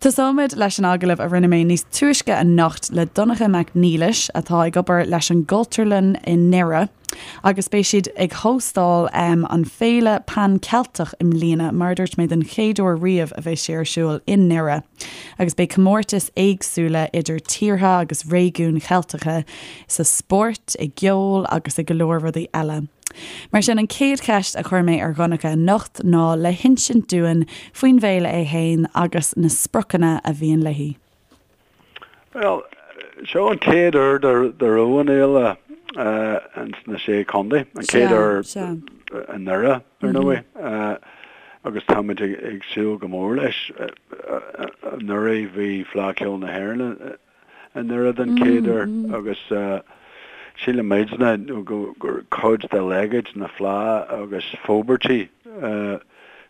Tosóimid leis an agallamh a rinne mé níos túisce anocht le Donncha Mac Niallais atá ag obair leis an gCultúrlann i nDoire agus beidh siad ag hóstáil an Féile Pan Ceilteach i mbliana, mar a dúirt mé den chéad uair riamh a bheidh sé ar siúl i nDoire agus beidh comórtais éagsúla idir tíortha agus réigiúin Cheilteacha sa spórt, i gceol agus i go leor rudaí eile. Mar sin, an chéad cheist a chuir mé ar Dhonncha anocht ná le hinsint dúinn faoin bhféile é fhéin agus na spriocanna a bhíonn léi. Bhuel, seo an chéad uair dá raibh an fhéile ins na Sé Chontae, an chéad uair i nDoire, ar ndóigh, agus táimid ag súil go mór leis. Anuraidh bhí Fleadh Cheoil na hÉireann i nDoire den chéad uair agus sílimidne gur cuid de leithéid na Fleá agus forbairtí,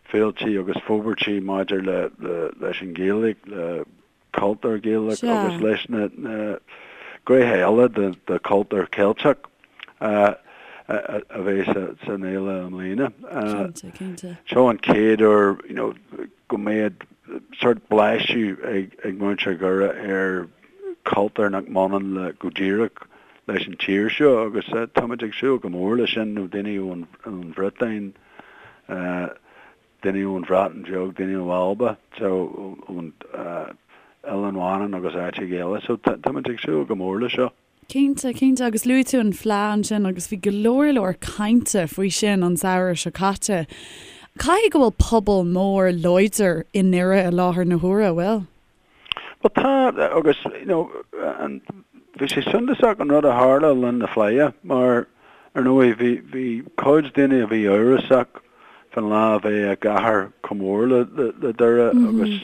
féiltí agus forbairtí maidir leis an Ghaeilge, le cultúr Gaelach agus leis na gnéithe eile de chultúr Ceilteach a bheidh san fhéile i mbliana. Seo an chéad uair go mbeidh sórt blaiseadh ag muintir Dhoire ar chultúr nach mbaineann le go díreach leis an tír seo agus táimid ag súil go mór leis sin, nó daoine ón Bhriotáin, daoine ón Bhreatain Bheag, daoine ó Alba, so ón Oileán Mhanann agus áiteacha eile. So táimid ag súil go mór leis seo. Cinnte, cinnte, agus luaigh tú an Fleadh ansin agus bhí go leor leor cainte faoi sin an samhradh seo caite. Caithfidh go bhfuil pobal mór láidir i nDoire i láthair na huaire, an bhfuil? Bhuel tá, agus you know an, bhí sé suntasach an rud a tharla le linn na Fleidhe mar ar ndóigh bhí, bhí cuid daoine a bhí amhrasach fán lá a bheith i gcathair chomh mór le, le, le Doire agus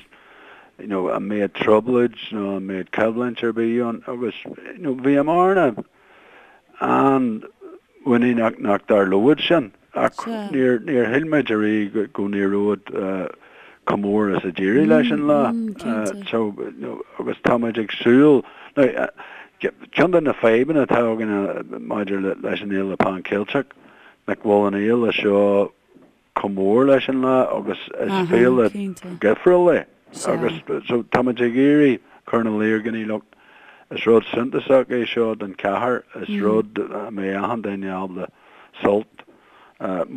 you know an mbeadh trioblóid nó an mbeadh coimhlint ar bith ann agus you know bhíomarna an-mhuiníneach nach dtarlódh sin ach níor níor shíl muid ariamh go n-éireodh chomh mór is a d'éirigh leis an lá so you know agus tá muid ag súil now ceann de na fadhbanna atá againn maidir leis an Fhéile Pan Cheilteach nach bhfuil an fhéile seo chomh mór leis an lá agus is féile dhifriúil é agus so táimid ag iarraidh cur ina luí ar dhaoine look is rud suntasach é seo don chathair, is rud a mbeidh achan duine ábalta sult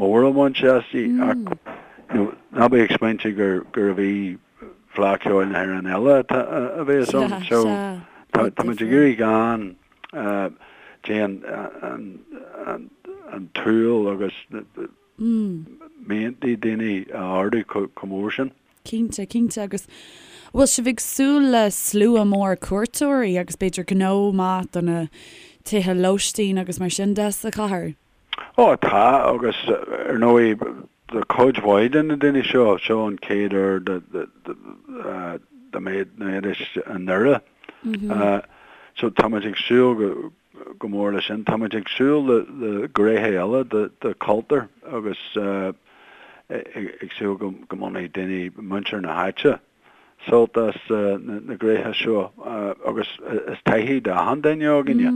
mór a bhaint aisti ach you know ná bí ag smaointiú gur gurbh í Fleadh Cheoil na hÉireann eile a bheas ann so táimid ag iarraidh gan déan an tsúil agus miantaí daoine a ardú chomh mór sin. Cinnte, cinnte. Agus bhfuil sibh ag súil le slua mór cuairteoirí agus b'fhéidir gnó maith do na tithe lóistín agus mar sin de sa chathair? Ó tá, agus ar ndóigh do chuid mhaith de na daoine seo, seo an chéad uair dá mbeidís i nDoire. So táimid ag súil go go mór leis sin. Táimid ag súil le gnéithe eile de chultúr agus ag súil go mbainfidh daoine, muintir na háite, sult as na gnéithe seo agus is taithí d'achan duine againne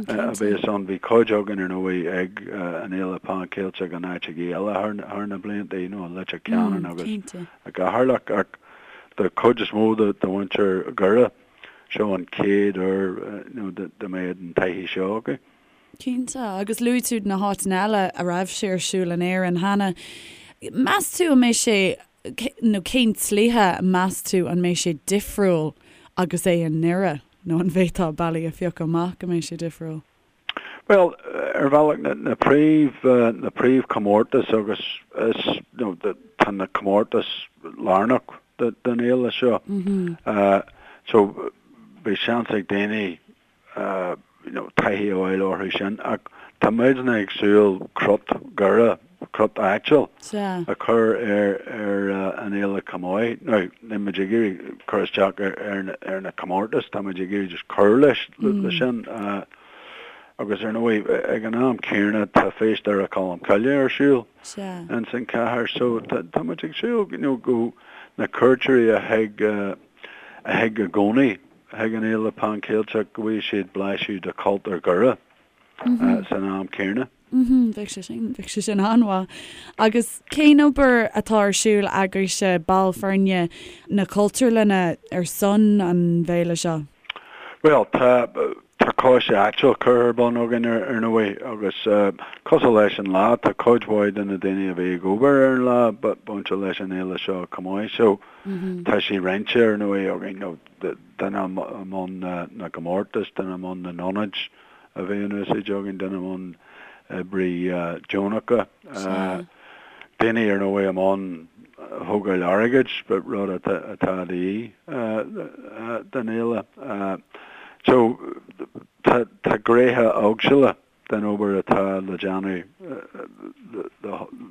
a bheas ann. Bhí cuid againn ar ndóigh ag an Fhéile Pan Cheilteach in áiteachaí eile thar na blianta, you know, i Leitir Ceanainn agus i gCeatharlach ach do chuid is mó de mhuintir Dhoire, Seo an chéad uair dá mbeadh an taithí seo acu. Cinnte, agus luaigh tú na háiteanna eile a raibh sé ar siúl in Éirinn cheana. Meas tú an mbeidh sé, nó cén tslí meas tú an mbeidh sé difriúil agus é i nDoire, nó an bhféadfá bealaí a phiocadh amach go mbeidh sé difriúil? Bhuel, ar bhealach, na príomh, na príomhchomórtais agus is, you know, tá na comórtais lárnach don fhéile seo. So, beidh seans ag daoine, you know, taithí a fháil orthu sin ach tá muidne ag súil crot Dhoire, crot áitiúil a chur ar ar an fhéile chomh maith. Now, níl muid ag iarraidh cur isteach ar ar na comórtais, tá muid ag iarraidh just cur leis leis sin. Agus ar ndóigh, ag an am céanna tá Feis Dhoire Cholm Cille ar siúl ins an chathair so tá muid ag súil you know go na cuairteoirí a thig a thig i gcónaí chuig an Fhéile Pan Cheilteach go bhfaighidh siad blaiseadh de chultúr Dhoire. san am céanna. Bheadh sé sin, bheadh sé sin an-mhaith. Agus cén obair atá ar siúl agaibhse, baill foirne na Cultúrlainne, ar son an bhféile seo? Bhuel, tá, tá coiste áitiúil curtha ar bun againn ar, ar ndóigh agus cosúil leis an lá, tá cuid mhaith de na daoine a bhí ag obair ar an lá bainte leis an fhéile seo chomh maith. So, tá sé roinnte ar ndóigh againn, you know, duine i mbun na gcomórtas, duine i mbun na n-ionaid, a bheidh in úsáid againn, duine i mbun oibrí deonacha, daoine ar ndóigh i mbun thógáil airgid, rud atá de dhíth don fhéile. So tá gnéithe éagsúla den obair atá le déanamh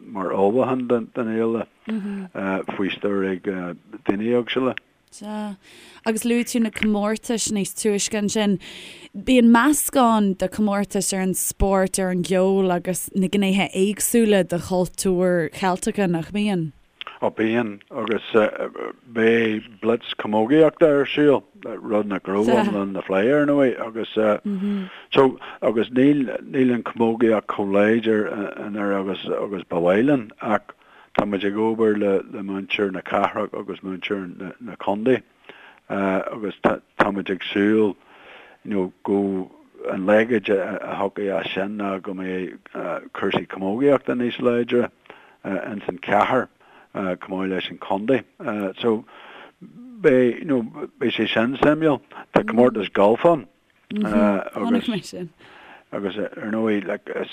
mar ullmhúchán don fhéile faoi stiúir ag daoine éagsúla. Sea. Agus luaigh tú na comórtais níos túisce ansin. Bíonn meascán de chomórtais ar an spórt, ar an gceol agus na gnéithe éagsúla de chultúr Cheilteacha, nach mbíonn? Ó bíonn, agus beidh blitz camógaíochta ar siúl, rud nach raibh ann le linn na Fleidhe ar ndóigh, agus so, agus níl, níl an chamógaíocht chomh láidir i nDoire agus, agus ba mhaith linn ach, Tá muid ag obair le muintir na cathrach agus muintir na contae agus tá muid ag súil you know go an leithéid a thiocfaidh as sin ná go mbeidh cúrsaí camógaíochta níos láidre ins an chathair chomh maith leis an chontae. So beidh you know beidh sé sin suimiúil. Tá comórtas gailf ann. Chonaic mé sin. Agus ar ndóigh like is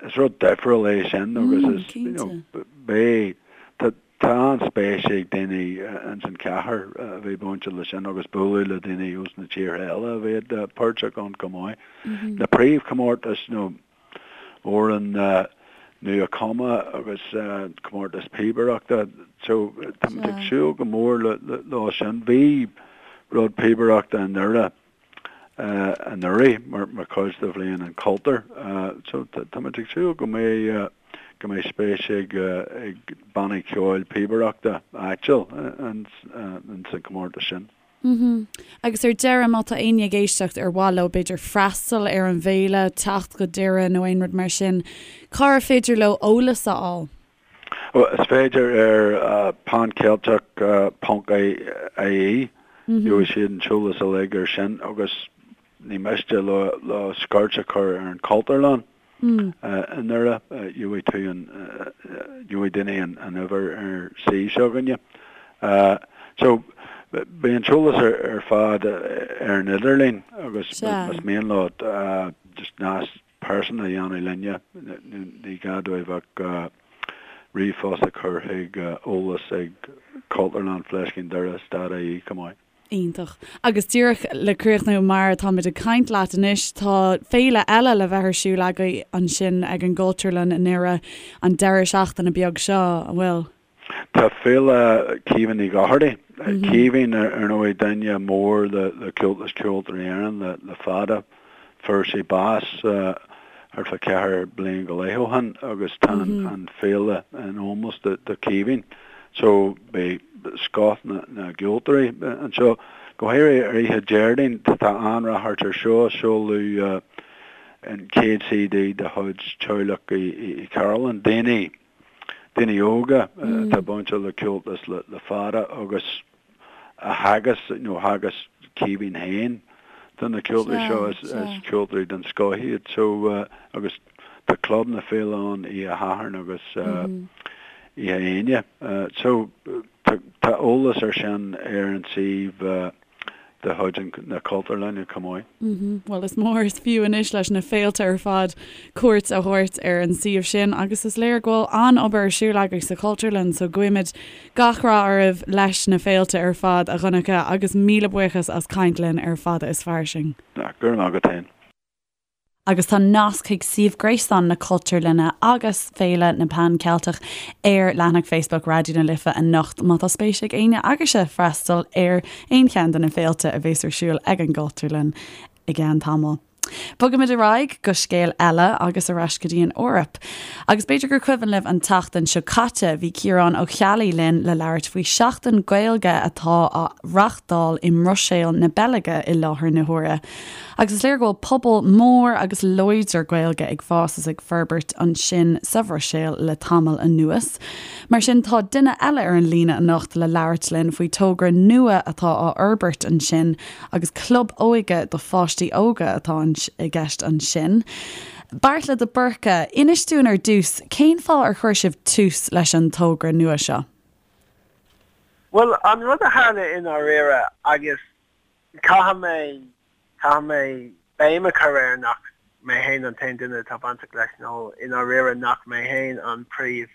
is rud difriúil é sin agus is you know beidh tá tá an-spéis ag daoine ins an chathair a bheith bainte le sin agus bualadh le daoine ós na tíortha eile a bheadh páirteach ann chomh maith. Na príomhchomórtais nó amhrán nua-chumtha agus comórtas píobaireachta. So tá muid ag súil go mór leo sin. Bhí rud píobaireachta i nDoire anuraidh mar chuid de Bhliain an Chultúir. So tá muid ag súil go mbeidh go mbeidh spéis ag ag bannaí ceoil píobaireachta áitiúil ins an chomórtas sin. Mhm. Agus ar deireadh, má tá éinne ag éisteacht ar mhaith leo b'fhéidir freastal ar an bhféile, teacht go Doire nó aon rud mar sin, cár féidir leo eolas a fháil? Is féidir ar panceilteach ponc ie, gheobhaidh siad an t-eolas uilig ar sin agus ní miste leo scoirt a chur ar an Chultúrlann. I nDoire, gheobhaidh tú an, gheobhaidh daoine an uimhir ar suíomh s'againne. So, beidh an t-eolas ar fad ar an idirlíon agus más mian leo just nasc pearsanta a dhéanamh linne, ní gá dóibh ach ríomhphost a chur chuig eolas ag Cultúrlann Fleiscín Doire dot ie chomh maith. Iontach. Agus díreach le críochnú, mar atáimid ag caint leat anois, tá féile eile le bheith ar siúl agaibh ansin ag an gCultúrlann i nDoire an deireadh seachtaine beag seo, an bhfuil? Tá Féile Caoimhín Uí Dhochartaigh. Caoimhín, ar ndóigh, duine mór le Comhaltas Ceoltóirí Éireann le fada. Fuair sé bás thart fá cheithre bliain go leith ó shin agus tá an féile in ómós do Caoimhín. So beidh scoth na gceoltóirí anseo. Go háirithe ar oíche Déardaoin tá an-ráchairt ar seo, seoladh an chéad CD de chuid teaghlach Uí Chearúlláin, daoine daoine óga atá bainte le Comhaltas le fada agus a theagasc nó theagasc Caoimhín féin do na ceoltóirí seo is ceoltóirí den scoth iad so agus tá Club na Féile ann oíche Shathairn agus oíche Aoine so tá eolas ar sin ar an suíomh de chuid na Cultúrlainne chomh maith. Bhuel, is mór is fiú anois leis na féilte ar fad cuairt a thabhairt ar an suíomh sin agus is léir go bhfuil an-obair ar siúl agaibh sa Chultúrlann so guímid gach rath oraibh leis na féilte ar fad, a Dhonncha, agus míle buíochas as caint linn ar Fada is Fairsing. Go raibh maith agat féin. Agus tá nasc chuig suíomh gréasáin na Cultúrlainne agus Féile na Pan Ceilteach ar leathanach Facebook Raidió na Life anocht má tá spéis ag éinne agaibhse freastal ar aon cheann de na féilte a bheas ar siúl ag an gCultúrlann i gceann tamaill. Bogaimid ar aghaidh go scéal eile agus ar ais go dtí an Eoraip. Agus b'fhéidir gur cuimhin libh an tseachtain seo caite bhí Ciarán Ó Ceallaigh linn le labhairt faoi Seachtain Gaeilge atá á reachtáil i mBruiséil na Beilge i láthair na huaire. Agus is léir go bhfuil pobal mór agus láidir Gaeilge ag fás is ag forbairt ansin sa Bhruiséil le tamall anuas. Mar sin tá duine eile ar an líne anocht le labhairt linn faoi togra nua atá á fhorbairt ansin Agus club óige do pháistí óga atá i gceist ansin. Beartla de Búrca, inis dúinn ar dtús, cén fáth ar chuir sibh tús leis an togra nua seo? Bhuel, an rud a tharla i ndáiríre, agus caithfidh mé, caithfidh mé béim a chur air nach mé féin an t-aon duine atá bainteach leis, nó i ndáiríre nach mé féin an príomh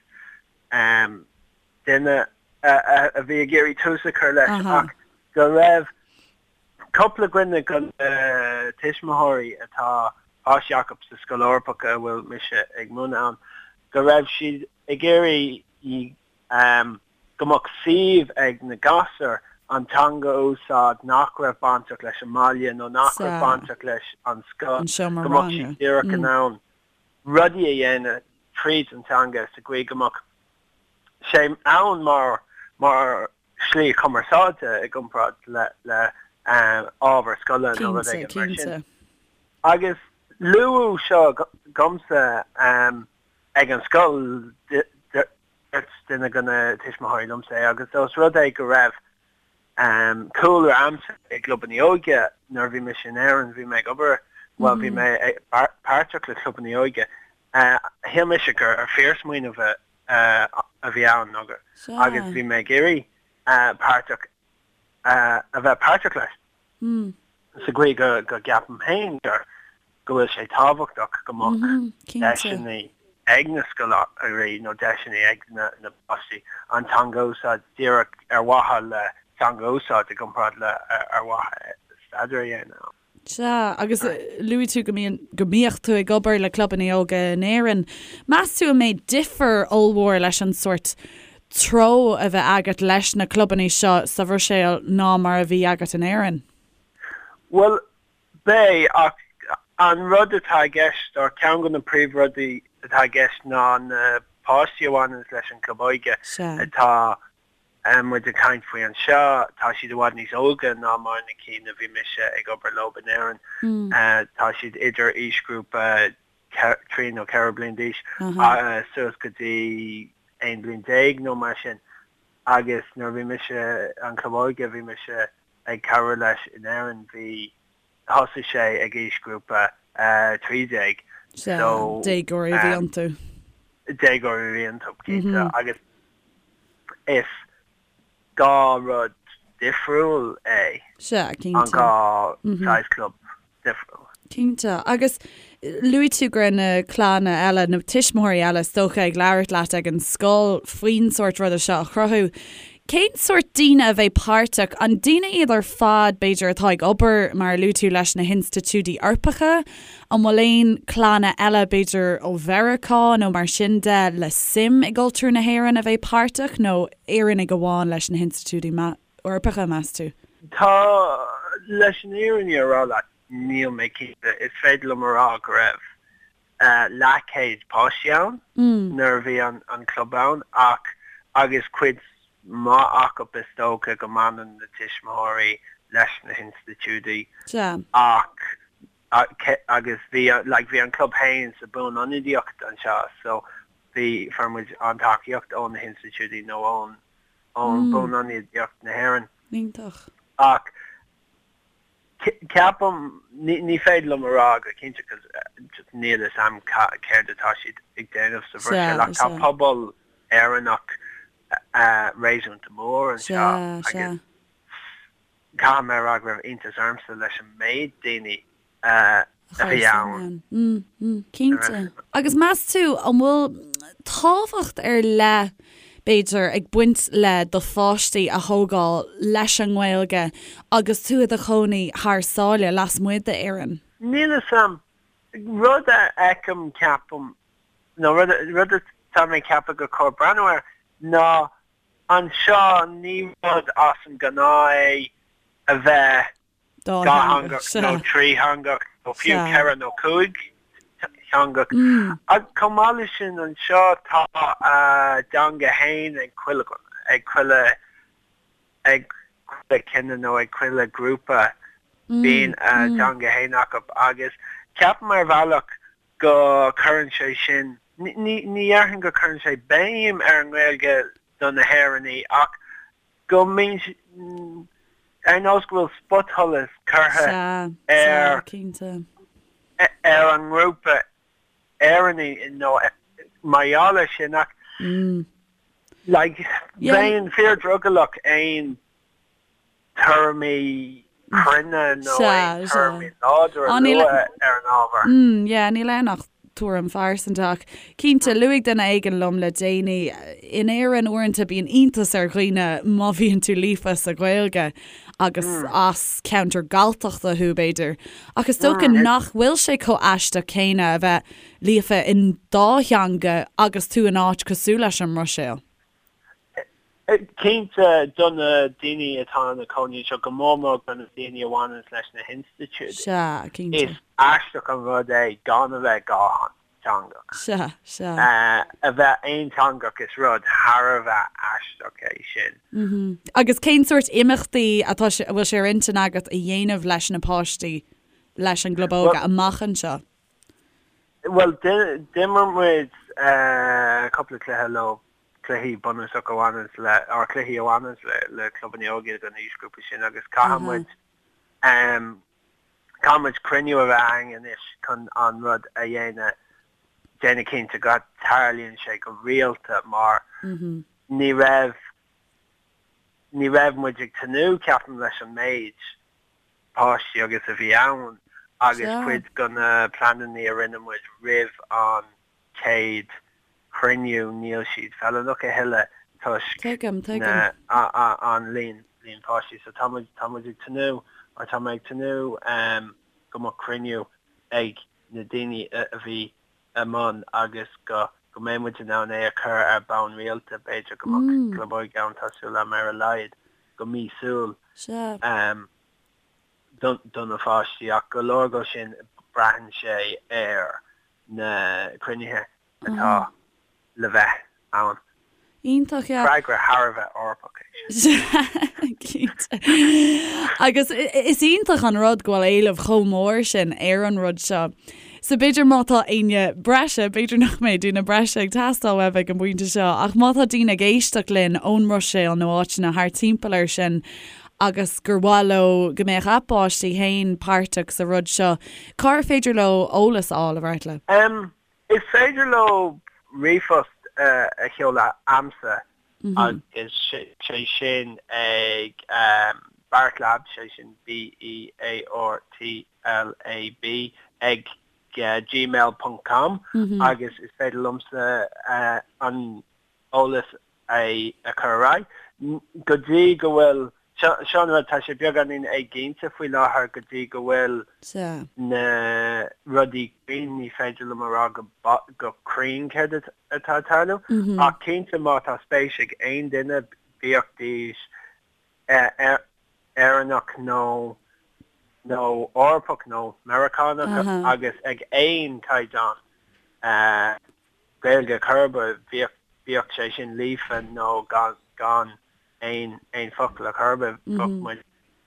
duine a bhí ag iarraidh tús a chur leis ach go raibh cúpla duine de na tuismitheoirí atá páistí acu sa Scoil Eorpach a bhfuil mise ag múineadh ann, go raibh siad ag iarraidh go mbeadh suíomh ag na gasúir an teanga a úsáid nach raibh bainteach leis an mbaile nó nach raibh bainteach leis an scoil, go mbeadh siad díreach in ann rudaí a dhéanamh tríd an teanga sa gcaoi go mbeadh sé ann mar mar shlí chumarsáide i gcomparáid le le ábhar scoile nó rud éigin mar sin. Agus luadh seo dhomsa ag an scoil, dúirt duine de na tuismitheoirí liomsa é agus ós rud é go raibh cúlra a'msa i gclubanna óige nuair a bhí mise in Éirinn, bhí mé ag obair, bhuel bhí mé páirteach le clubanna óige, shíl mise gur fíorsmaoineamh a bhí ann agus bhí mé ag iarraidh páirteach a bheith páirteach leis. Sa gcaoi go gceapaim féin gur go bhfuil sé tábhachtach go mbeadh deiseanna ag na scoláirí nó deiseanna ag na páistí an teanga a úsáid díreach ar mhaithe le teanga a úsáid i gcomparáid le ar mhaithe staidéar a dhéanamh. Sea, agus luaigh tú go mbíonn, go mbíodh tú ag obair le clubanna óga in Éirinn. Meas tú an mbeidh difear ollmhór leis an sórt treo a bheith agat leis na clubanna seo sa Bhruiséil ná mar a bhí agat in Éirinn? Bhuel, beidh, ach an rud atá i gceist, or ceann de na príomhrudaí atá i gceist ná na páistí a bhaineanns leis an gclub óige atá muid ag caint faoi anseo, tá siad i bhfad níos óige ná mar na cinn a bhí mise ag obair leo in Éirinn. Tá siad idir aoisghrúpa 3 nó 4 bliain d'aois suas go dtí 11 bliain nó mar sin. Agus nuair a bhí mise, an club óige a bhí mise ag cabhrú leis in Éirinn, bhí, thosaigh sé ag aoisghrúpa 13. Sea, déagóirí a bhí iontu. Déagóirí a bhí iontu, cinnte. Agus is 2 rud difriúil é. Sea, cinnte. An 2 saghas club difriúil. Cinnte. Agus luaigh tú go raibh na clanna eile, na tuismitheoirí eile is dócha, ag labhairt leat ag an scoil faoin sórt ruda seo a chruthú. Cén sórt daoine a bheidh páirteach? An daoine iad ar fad, b'fhéidir, atá ag obair, mar a luaigh tú, leis na hinstitiúidí Eorpacha? An bhfuil aon clanna eile, b'fhéidir ó Mheiriceá nó mar sin de, le suim i gcultúr na hÉireann a bheidh páirteach, nó Éireannaigh amháin leis na hinstitiúidí Eorpacha, meas tú? Tá, leis an fhírinne a rá leat, níl mé cinnte. Is féidir liom a rá go raibh leathchéad páistí ann nuair a bhí an club ann ach agus cuid mhaith acu is dócha go mbaineann na tuismitheoirí leis na hinstitiúidí ach agus bhí like bhí an club féin sa buanionadaíocht anseo so bhí fuair muid an tacaíocht ó na hinstitiúidí nó ón ón buanionadaíocht na hÉireann. Iontach. Ach Ceapaim, ní féidir liom a rá go cinnte cos just níl fhios a'm céard atá siad ag déanamh sa Bhruiséil ach tá pobal Éireannach réasúnta mór anseo agus caithfidh mé a rá go raibh iontas ormsa leis an méid daoine a bhí ann. Cinnte. Agus meas tú an bhfuil tábhacht ar leith, b'fhéidir, ag baint le do pháistí a thógáil leis an nGaeilge agus tú i do chónaí thar sáile, lasmuigh d'Éirinn? Níl fhios a'm. Rud a fheicim, ceapaim, nó rud rud atá mé ag ceapadh gur chóir breathnú air ná anseo ní rud as an ngnáth é a bheith dátheangach nó trítheangach. nó fiú 4 nó 5 theangach. Ach chomh maith leis sin anseo tá a dteanga fhéin ag chuile ag chuile ag chuile chine nó ag chuile grúpa bíonn a dteanga fhéin acu agus ceapaim ar bhealach go cuireann sé sin, ní dhéarfainn go cuireann sé béim ar an nGaeilge do na hÉireannaigh ach go mbíonn, ar nós go bhfuil spotsholas curtha ar ar an ngrúpa Éireannaigh nó mar gheall air sin ach like bheinn fíor-drogallach aon tuairimí cruinne nó aon tuairimí láidre a lua ar an ábhar. Yeah, níl ann ach tuairim phearsanta ach cinnte, luaigh duine éigin liom le déanaí, in Éirinn uaireanta bíonn iontas ar dhaoine má bhíonn tú líofa sa Ghaeilge agus as ceantar Galltachta thú b'fhéidir. Ach is dócha nach bhfuil sé chomh aisteach céanna a bheith líofa in dá theanga agus tú in áit cosúil leis an mBruiséil. Cinnte, do na daoine atá ina cónaí anseo, go mór mór do na daoine a bhaineanns leis na hinstitiúidí, Sea, cinnte. is aisteach an rud é gan a bheith dhátheangach. Sea, sea. A bheith aonteangach, is rud thar a bheith aisteach é sin. Agus cén sórt imeachtaí atá sé, a bhfuil sé ar intinn agat a dhéanamh leis na páistí, leis an gClub Óige amach anseo? Bhuel, d'imir muid cúpla cluiche leo cluichí bunúsacha a bhaineanns le, or cluichí a bhaineanns le, le clubanna óige don aoisghrúpa sin agus caithfidh muid, caithfidh muid cruinniú a bheith againn anois chun an rud a dhéanamh, déanamh cinnte go dtarlaíonn sé go rialta mar ní raibh, ní raibh muid ag tnúth, ceapaim, leis an méid páistí agus a bhí ann agus cuid de na pleananna a rinne muid roimh an chéad chruinniú, níl siad feiliúnach a thuilleadh toisc Tuigim, tuigim. an líon líon páistí. So tá muid, tá muid ag tnúth, or tá mé ag tnúth go mbeadh cruinniú ag na daoine a bhí i mbun agus go go mbeidh muid in ann é a chur ar bonn rialta, b'fhéidir go mbeadh club óige ann, tá súil agam ar a laghad go míosúil. Sea. Do na pháistí ach go leor de sin braitheann sé ar na cruinnithe atá le bheith ann. Iontach, yeah. Freagra thar a bheith Eorpach é sin. Cinnte. Agus is iontach an rud go bhfuil éileamh chomh mór sin ar an rud seo. So b'fhéidir má tá éinne breise, b'fhéidir nach mbeidh duine breise ag teastáil uaibh ag an bpointe seo, ach má tá daoine ag éisteacht linn ón mBruiséil nó áiteanna thart timpeall air sin agus gur mhaith leo go mbeadh a bpáistí féin páirteach sa rud seo, cár féidir leo eolas a fháil, a Bheartla? Em, is féidir leo ríomhphost a sheoladh a'msa agus sé sin ag Beartlab, sé sin B-E-A-R-T-L-A-B, ag gmail ponc com agus is féidir liomsa an eolas a chur ar aghaidh. Go dtí go bhfuil, seo an rud, tá sé beagáinín éiginnte faoi láthair go dtí go bhfuil na rudaí cruinn, ní féidir liom a rá go cruinn céard atá ag tarlú, ach cinnte má tá spéis ag aon duine, bíodh Éireannach nó nó Eorpach nó Meiriceánach agus ag aon chaighdeán, Gaeilge chor ar bith, bíodh, bíodh sé sin líofa nó gan, gan aon, aon focal ar chor ar bith, bheadh muid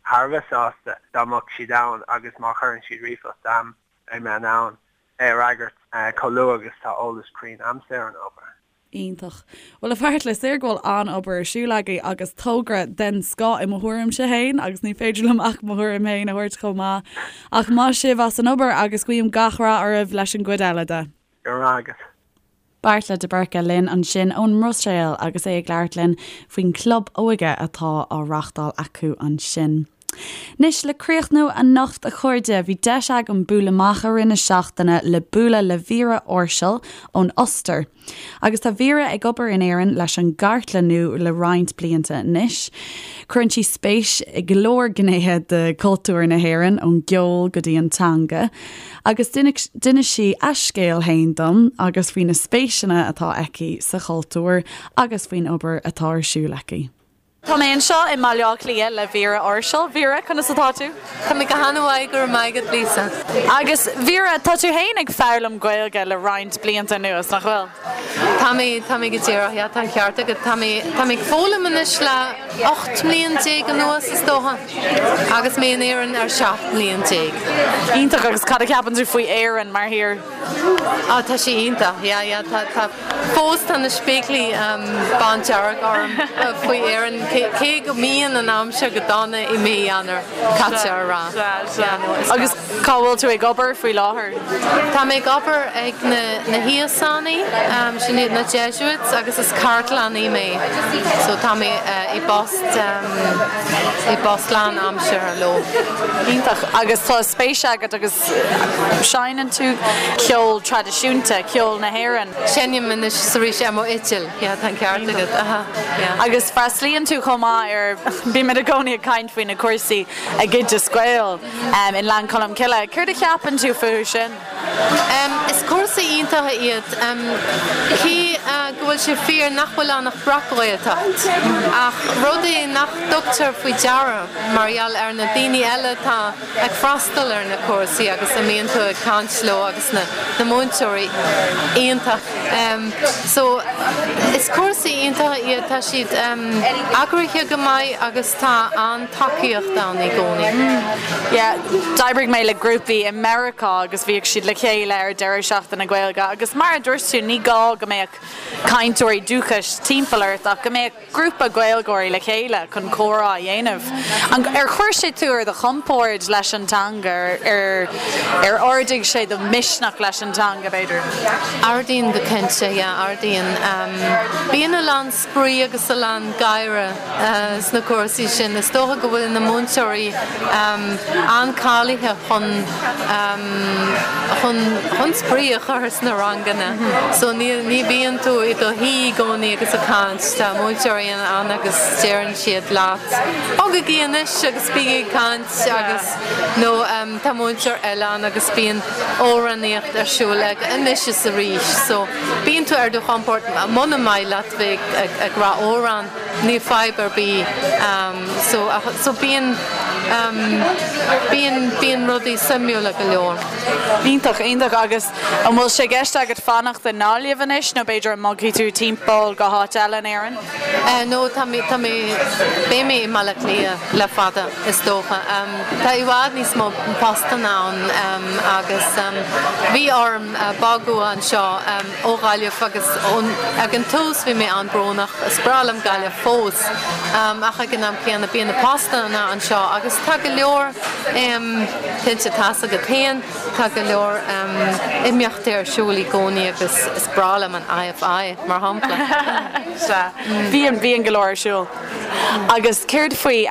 thar a bheith sásta dá mbeadh siad ann agus má chuireann siad ríomhphost a'm, beidh mé in ann é a fhreagairt chomh luath agus tá eolas cruinn a'msa ar an ábhar. Iontach. Bhuel, a Bheartla, is léir go bhfuil an-obair ar siúl agaibh agus togra den scoth i mo thuairimse féin agus ní féidir liom ach mo thuairim féin a thabhairt chomh maith. Ach maith sibh as an obair agus guím gach rath oraibh leis an gcuid eile de. Go raibh maith agat. Beartla de Búrca linn ansin ón mBruiséil agus é ag labhairt linn faoin gclub óige atá á reáchtáil acu ansin. Anois, le críochnú anocht a chairde, bhí deis agam bualadh amach i rith na seachtaine le bualadh le Vera Orschel ón Ostair. Agus tá Vera ag obair in Éirinn leis an gcartlannú le roinnt blianta anois. Cuireann sí spéis i go leor gnéithe de chultúr na hÉireann, ón gceol go dtí an teanga. Agus d'inis sí a scéal féin dom agus faoi na spéiseanna atá aici sa chultúr agus faoin obair atá ar siúl aici. Tá mé anseo i mBaile Átha Cliath le Vera Orshel. Vera, conas atá tú? Tá mé go han-mhaith, go raibh maith agat, Lisa. Agus Vera, tá tú féin ag foghlaim Gaeilge le roinnt blianta anuas, nach bhfuil? Tá mé, tá mé go díreach, yeah, tá an ceart agat. Tá mé, tá mé ag foghlaim anois le 18 mbliain anuas, is dócha, agus mé in Éirinn ar 17 mbliain. Iontach, agus cad a cheapann tú faoi Éirinn mar thír? Á, tá sí iontach, yeah, yeah, tá, tá, fós tá na spéaclaí bándearg orm faoi Éirinn, cé go mbíonn an aimsir go dona i mí Eanáir, caithfidh a rá. Sea, sea. Agus cá bhfuil tú ag obair faoi láthair? Tá mé ag obair ag na, na hÍosánaigh, sin iad na Jesuits, agus is cartlannaí mé, so tá mé i bpost, i bpost lán-aimseartha leo. Iontach. Agus tá spéis agat agus. Seinneann tú ceol traidisiúnta, ceol na hÉireann. Seinnim anois is arís ar mo fhidil, yeah, tá an ceart agat, aha, yeah. Agus freastalaíonn tú chomh maith ar, bímid i gcónaí ag caint faoi na cúrsaí ag Oideas Gael i nGleann Cholm Cille. Céard a cheapann tú fúthu sin? Is cúrsaí iontacha iad, cé go bhfuil sé fíor nach bhfuil ann ach breac-Ghaeltacht, ach rud é nach dtugtar faoi deara mar gheall ar na daoine eile atá ag freastal ar na cúrsaí agus a mbíonn tú ag caint leo agus na na múinteoirí iontach so is cúrsaí iontacha iad tá siad eagraithe go maith agus tá an-tacaíocht ann i gcónaí. Yeah, d'oibrigh mé le grúpaí i Meiriceá agus bhíodh siad le chéile ar deireadh seachtaine Gaeilge agus mar a dúirt tú ní gá go mbeadh cainteoirí dúchais timpeall ort ach go mbeadh grúpa Gaeilgeoirí le chéile chun comhrá a dhéanamh. Ar chuir sé tú ar do chompord leis an teanga? Ar ar ardaigh sé do mhisneach leis an teanga, b'fhéidir? Ardaíonn go cinnte, yeah, ardaíonn. Bíonn a lán spraoi agus a lán gáire sna cúrsaí sin. Is dócha go bhfuil na múinteoirí an-cáilithe chun chun chun spraoi a chur sna ranganna. So ní ní bhíonn tú i do shuí i gcónaí agus ag caint. Tá múinteoirí ann agus deireann siad leat, 'Bogaigí anois agus bígí ag caint' agus nó tá múinteoir eile ann agus bíonn amhránaíocht ar siúl ag anois is arís. So bíonn tú ar do chompord muna maith leat bheith ag ag rá amhrán. Níl fadhb ar bith so so bíonn bíonn bíonn rudaí suimiúla go leor. Iontach, iontach agus an bhfuil sé i gceist agat fanacht i nGaillimh anois nó b'fhéidir an mbogfaidh tú timpeall go háit eile in Éirinn? No tá mé tá mé beidh mé i mBaile Átha Cliath le fada is dócha. Tá i bhfad níos mó postanna ann agus bhí orm bogadh anseo ó Ghaillimh agus ag an tús bhí mé an-brónach, is breá liom Gaillimh fós ach ag an am céanna bíonn na postanna anseo agus tá go leor, cinnte tá's agat féin, tá go leor imeachtaí ar siúl i gcónaí agus is breá liom an IFI mar shampla. Sea, bíonn, bíonn go leor ar siúl. Agus céard faoi,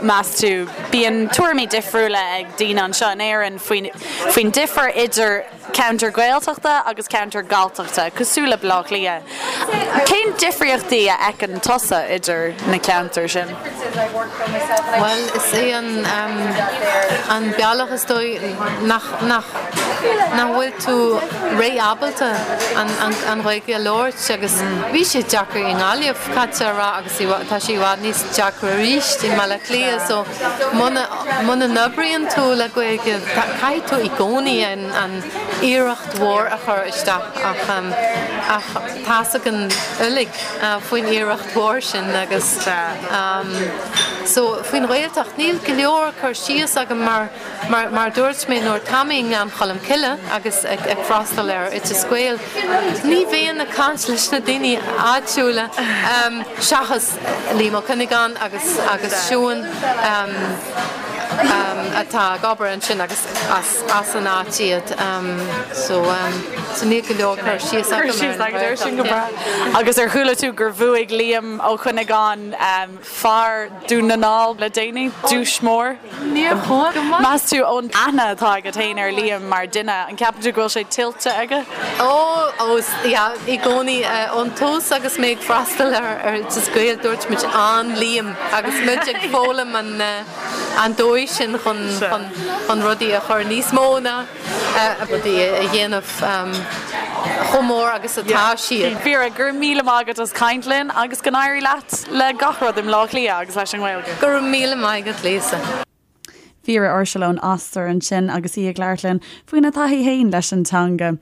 meas tú, bíonn tuairimí difriúla ag daoine anseo in Éirinn faoin, faoin difear idir, Ceantar Gaeltachta agus ceantar Galltachta, cosúil le Baile Átha Cliath. Cén difríochtaí a fheiceann tusa idir na ceantair sin? Bhuel, is é an an bealach is dóigh nach nach nach bhfuil tú ré-ábalta an an Ghaeilge a labhairt agus bhí sé deacair i nGaillimh, caithfidh a rá, agus tá sé i bhfad níos deacra arís i mBaile Átha Cliath so muna muna n-oibríonn tú le Gaeilge caithfidh tú i gcónaí an an iarracht mhór a chur isteach ach ach tá's againn uilig faoin iarracht mhór sin agus so faoin Ghaeltacht níl go leor cur síos agam mar mar mar dúirt mé nuair tá mé i nGleann Cholm Cille agus ag ag freastal ar Oideas Gael ní bhíonn ag caint leis na daoine áitiúla seachas Liam Ó Cuinneagáin agus agus Siún atá ag obair ansin agus as an áit iad so so níl go leor cur síos agam ar sin go breá. Agus ar chuala tú gur bhuaigh Liam Ó Cuinneagáin fear Dún na nGall le déanaí, duais mór? Níor chuala. Go maith. Meas tú ón aithne atá agat féin ar Liam mar duine, an ceapann tú go bhfuil sé tuillte aige? Ó, ó, yeah, i gcónaí. Ón tús agus mé ag freastal ar Oideas Gael dúirt muid an Liam agus muid ag foghlaim an an dóigh sin chun chun chun rudaí a chur níos mó ná. Rudaí a dhéanamh chomh mór agus atá siad. Vera, go raibh míle maith agat as caint linn agus go n-éirí leat le gach rud i mBleá Cliath agus leis an nGaeilge. Go raibh míle maith agat, Lisa. Vera Ursula ón Ostair ansin agus í ag labhairt linn faoina taithí féin leis an teanga.